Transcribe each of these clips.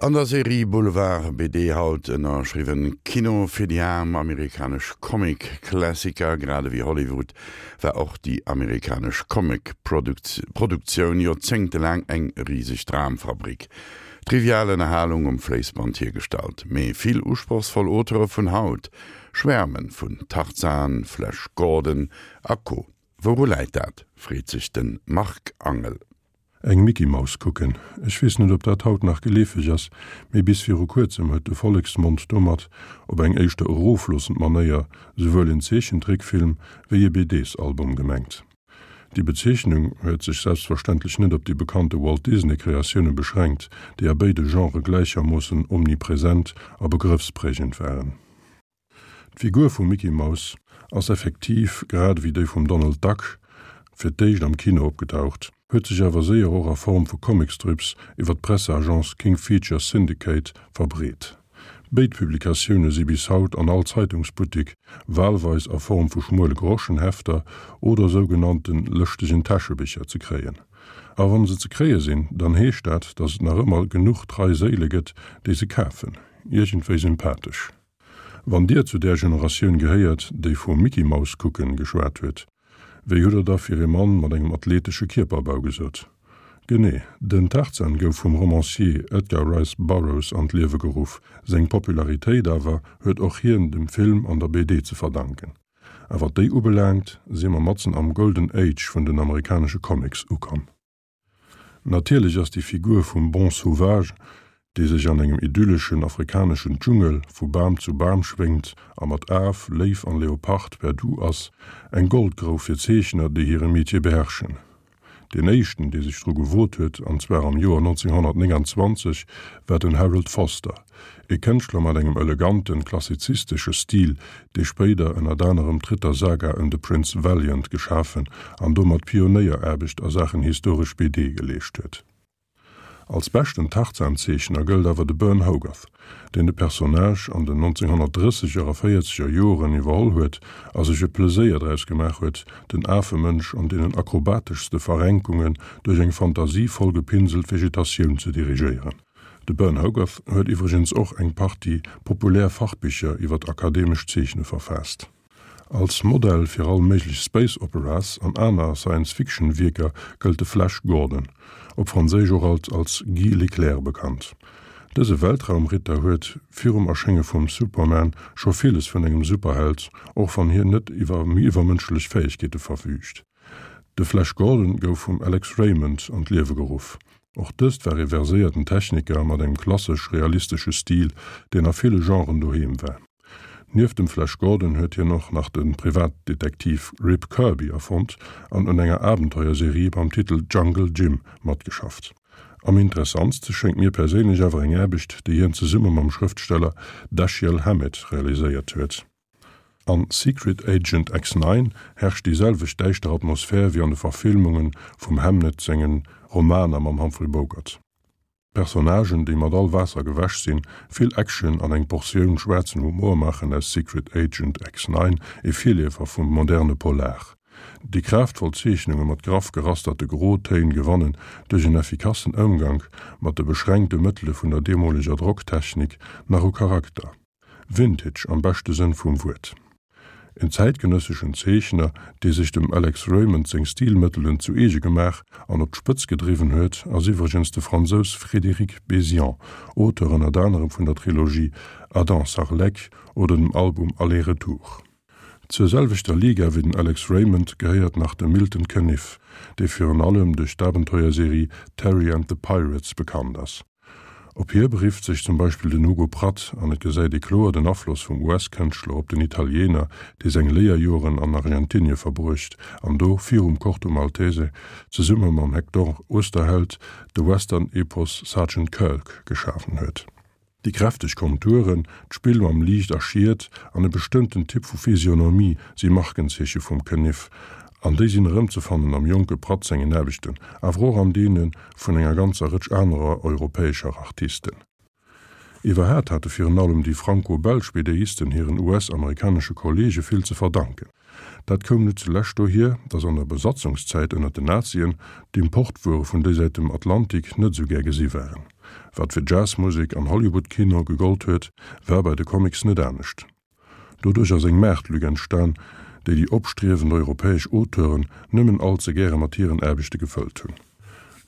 An der Serie Boulevard BD haut ënnerschriwwen Kino fir déi aarm, amerikanesch Comic-Klassiker. Grad ewéi Hollywood war och déi amerikanesch Comic-Produktioun joerzéngtelaang eng riseg Dramfabrik. Trivial Ënnerhalung um Fléissband hiergestallt. Mee vill usprochsvoll Auteure vun haut schwäerme vun Tarzan, Flash Gordon a Co. Wouru läit dat, freet sech de Marc Angel. Eng Micky Maus kucken, ech weess net op dat haut nach geleefeg ass, mee bis viru kuerzem huet de Volleksmond domat, op eng éischter erofloossend Manéier, souwuel en Zeechentrickfilm wéi e BDs-Album gemengt. Déi Bezeechnung huet sech selbstverständlech net op déi bekannte Walt Disney Kreatioune beschränkt, déi a béide Genrë gläichermoossen omnipresent a begrëffsprägend waren. D'Figur vum Micky Maus ass effektiv, grad ewéi déi vum Donald Duck, fir d'éischt am Kino opgedaucht, huet sech awer séier och a Form vu Comicstrips iwwer d'Presseagence King Features Syndicate verbreet. Béid Publikatioune si bis haut an all Zeitungsbuttik, walweis a Form vu schmuele Groschenhefter oder sougenannte lëschtegen Täschebicher ze kréien. A wann se ze kréie sinn, dann heescht dat, datt et nach ëmmer genuch trei Séile gëtt, déi se kafen. Iergendwéi sympathesch. Wann Dir zu där Generatioun gehéiert, déi vum Micky Maus kucken geschwat huet, wéi hutt Der da fir ee Mann mat engem athletesche Kierperbau gesot? Genee, den Tarzan gouf vum Romancier Edgar Rice Burroughs an d'Liewe geruff, seng Popularitéit awer huet och hien dem Film an der BD ze verdanken. A wat déi ubelaangt, si mer matzen am Golden Age vun den amerikanesche Comics ukomm. Natierlech ass déi Figur vum Bon Sauvage, dee sech an engem idylleschen afrikaneschen Dschungel vu Bam zu Bam schwéngt a mat Af, Léif an Leopard per Du ass, eng Goldgrouf fir Zeechner, déi hire Metier beherrschen. Deen éischten, dee sech dru gewot huet, an zwar am Joer 1929, war den Harold Foster, e Kënschtler mat engem eleganten, klassizistesche Stil, dee spéider ënnert anerem d'Rittersaga ëm de Prince Valiant geschafen an domat Pionéieraarbecht a Saachen historesch BD geleescht huet. Als beschten Tarzan-Zeechner gëllt awer de Burne Hogarth, deen de Personnage an den 1930er a véierzeger Joren iwwerholl huet a sech e Pleséier draus gemaach huet, den Afemënsch an deenen akrobateschste Verrenkungen duerch eng fantasievoll gepinselt Vegetatioun ze dirigéieren. De Burne Hogarth huet iwwregens och eng Partie populär Fachbicher iwwer akademescht Zeechne verfaasst. Als Modell fir all méiglech Space Operas an aner Science-Fiction-Wierker gëllt de Flash Gordon, op Franséisch och alt als Guy Leclerc bekannt. Dëse Weltraumritter huet virum Erschénge vum Superman scho villes vun engem Superheld, och wann hien net iwwer iwwermënschlech Fäegkeete verfüügt. De Flash Gordon gouf vum Alex Raymond an d'Liewe geruff. Och dëst war ee verséierten Techniker mat engem klassesch-realistesche Stil, deen a ville Genren doheem war. Nieft dem Flash Gordon huet hien och nach de Privatdetektiv Rip Kirby erfonnt an un enger Abenteuerserie mam Titel Jungle Jim matgeschafft. Am interessantste schéngt mir perséinlech awer eng Aarbecht, déi hien zesumme mam Schrëftsteller Dashiell Hammett realiséiert huet. An Secret Agent X-Nine herrscht déi selwecht däischter Atmosphär wéi an de Verfilmunge vum Hamnet sengen Romaner mam Humphrey Bogart. Personnagen, déi mat all Waasser gewäsch sinn, vill Action an eng Portioun schwaarzen Humor maachen aus Secret Agent X-Nine ee Virleefer vum moderne Polar. Déi kraaftvoll Zeechnunge mat graff gerasterte Grotéin gewannen duerch en effikassen Ëmgank mat de beschränkte Mëttele vun der deemoleger Drocktechnik nach u Charakter. Vintage am beschte Sënn vum Wuert. En zäitgenësseschen Zeechner, dee sech dem Alex Raymond seng Stilmëttelen zu eege gemaach an op d'Spëtz gedriwwen huet, ass iwwregens de Fransous Frédéric Bézian, Auteur ënnert anerem vun der Trilogie Adam Sarlec oder dem Album Aller-Retour. Zur selwechter Liga wéi den Alex Raymond gehéiert nach de Milton Caniff, dee virun allem duerch d'Abenteuerserie Terry and the Pirates bekannt ass. Op hie berifft sech zum Beispill den Hugo Pratt an et gesäit ee kloer den Afloss vum US-Kënschtler op den Italiener, dee seng Léierjoren an Argentinie verbruecht an do virum Corto Maltese zesumme mam Hector Oesterheld de Western-Epos Sergeant Kirk geschafen huet. Déi kräfteg Konturen, d'Spill mam Liicht a Schiet an e bestëmmten Typ vu Physionomie si Markenzeeche vum Caniff, an déi sinn erëmzefannen am jonke Pratt sengen Aarbechten, awer och an deene vun enger ganzer Rëtsch anerer europäescher Artisten. Iwwerhaat hate virun allem déi franco-belsch BDisten hiren US-amerikanesche Kolleege vill ze verdanken. Dat koum net zulescht dohier, datt an der Besatzungszäit ënner den Nazien d'Importwuere vun déisäit dem Atlantik net esou gär gesi waren. Wat fir Jazzmusek an Hollywood-Kino gegollt huet, war bei de Comics net anescht. Doduerch ass eng Maartlück entstan, déi déi opstriewend europäesch Auteuren nëmmen all ze gäre mat hiren Aarbechte gefëllt hunn.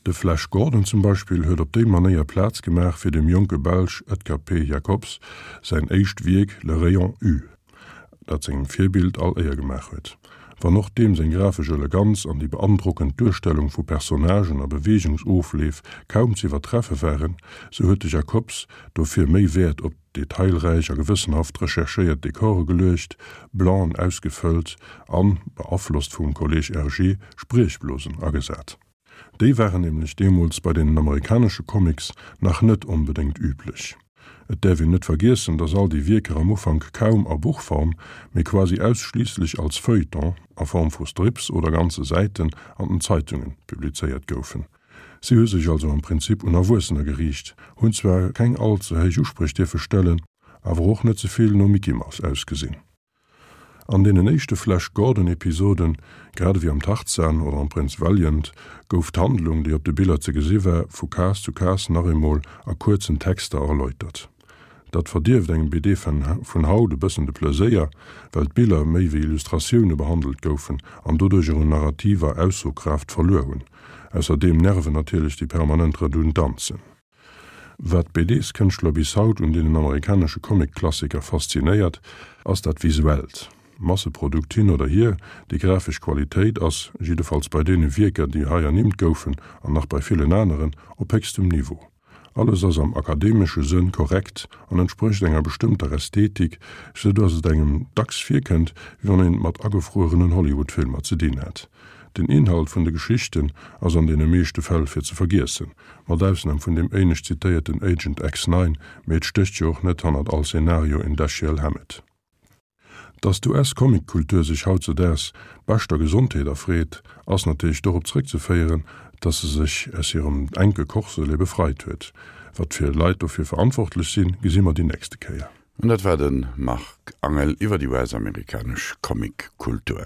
De Flash Gordon zum Beispill huet op déi Manéier Plaz gemaach fir dem jonke Belsch Edgar P. Jacobs säin éischt Wierk Le Rayon U, dat sengem Virbild all Éier gemaach huet. Wann och deem seng grafesch Eleganz an déi beandrockend Duerstellung vu Personnagen a Beweegungsofleef kaum z'iwwertreffe waren, sou huet de Jacobs dofir méi Wäert op detailräich a gewëssenhaft recherchéiert Dekore geluecht, Blancen ausgefëllt an, beaflosst vum Kolleg Hergé, Spriechblosen agesat. Déi waren nämlech deemools bei deenen amerikanesche Comics nach net onbedéngt üblech. Et däerf een net vergiessen, dass all déi Wierker am Ufank kaum a Buchform, mee quasi ausschliisslech als Feuilleton, a Form vu Strips oder ganze Säiten an den Zeitunge publizéiert goufen. Si hu sech also am Prinzip un Erwuessener geriicht, hunn zwar keng all ze héich Uspréch dierfe stellen, awer och net ze vill no Mickey Mouse ausgesinn. An deenen éischte Flash Gordon Episoden, grad ewéi am Tarzan oder am Prinz Valiant, gouf d'Handlung, déi op de Biller ze gesi war, vu Case zu Case nach eemol a kuerzen Texter erläutert. Dat verdierft engem BD-Fan vun haut e bëssen de Pleséier, well d'Biller méi wéi Illustratioune behandelt goufen an doduercher un narrativer Aussokraaft verluer hunn. Ausserdeem nerven natierlech déi permanent Redundanzen. Wat d'BDs-Kënschtler bis haut un deenen amerikanesche Comic-Klassiker faszinéiert, ass dat Visuellt. Masseprodukt hin oder hier, déi grafesch Qualitéit ass, jiddefalls bei deene Wierker, déi hei ernimmt goufen an nach bei villen aneren, op héchstem Niveau. Alles ass am akademesche Sënn korrekt an entsprécht enger bestëmmter Ästhetik, sou dass et engem dacks virkënnt, wéi wann een et mat agefruerenen Hollywood-Filmer ze dinn hätt. Den Inhalt vun de Geschichten ass an deene meeschte Fäll fir ze vergiessen, mat Ausnam vun deem éinescht zitéierten Agent X-Nine, mee et stécht jo och net hannert all Szenario en Dashiell Hammett. Dass d'US-Comic-Kultur sech hautzedaags beschter Gesondheet erfreet, ass natierlech dorop zréckzeféieren, dass se sech aus hirem enke Corselet befreit huet. Wat fir Leit dofir verantwortlech sinn, gesi mer déi nächste Kéier. An dat war de Marc Angel iwwer déi US-amerikanesch Comic-Kultur.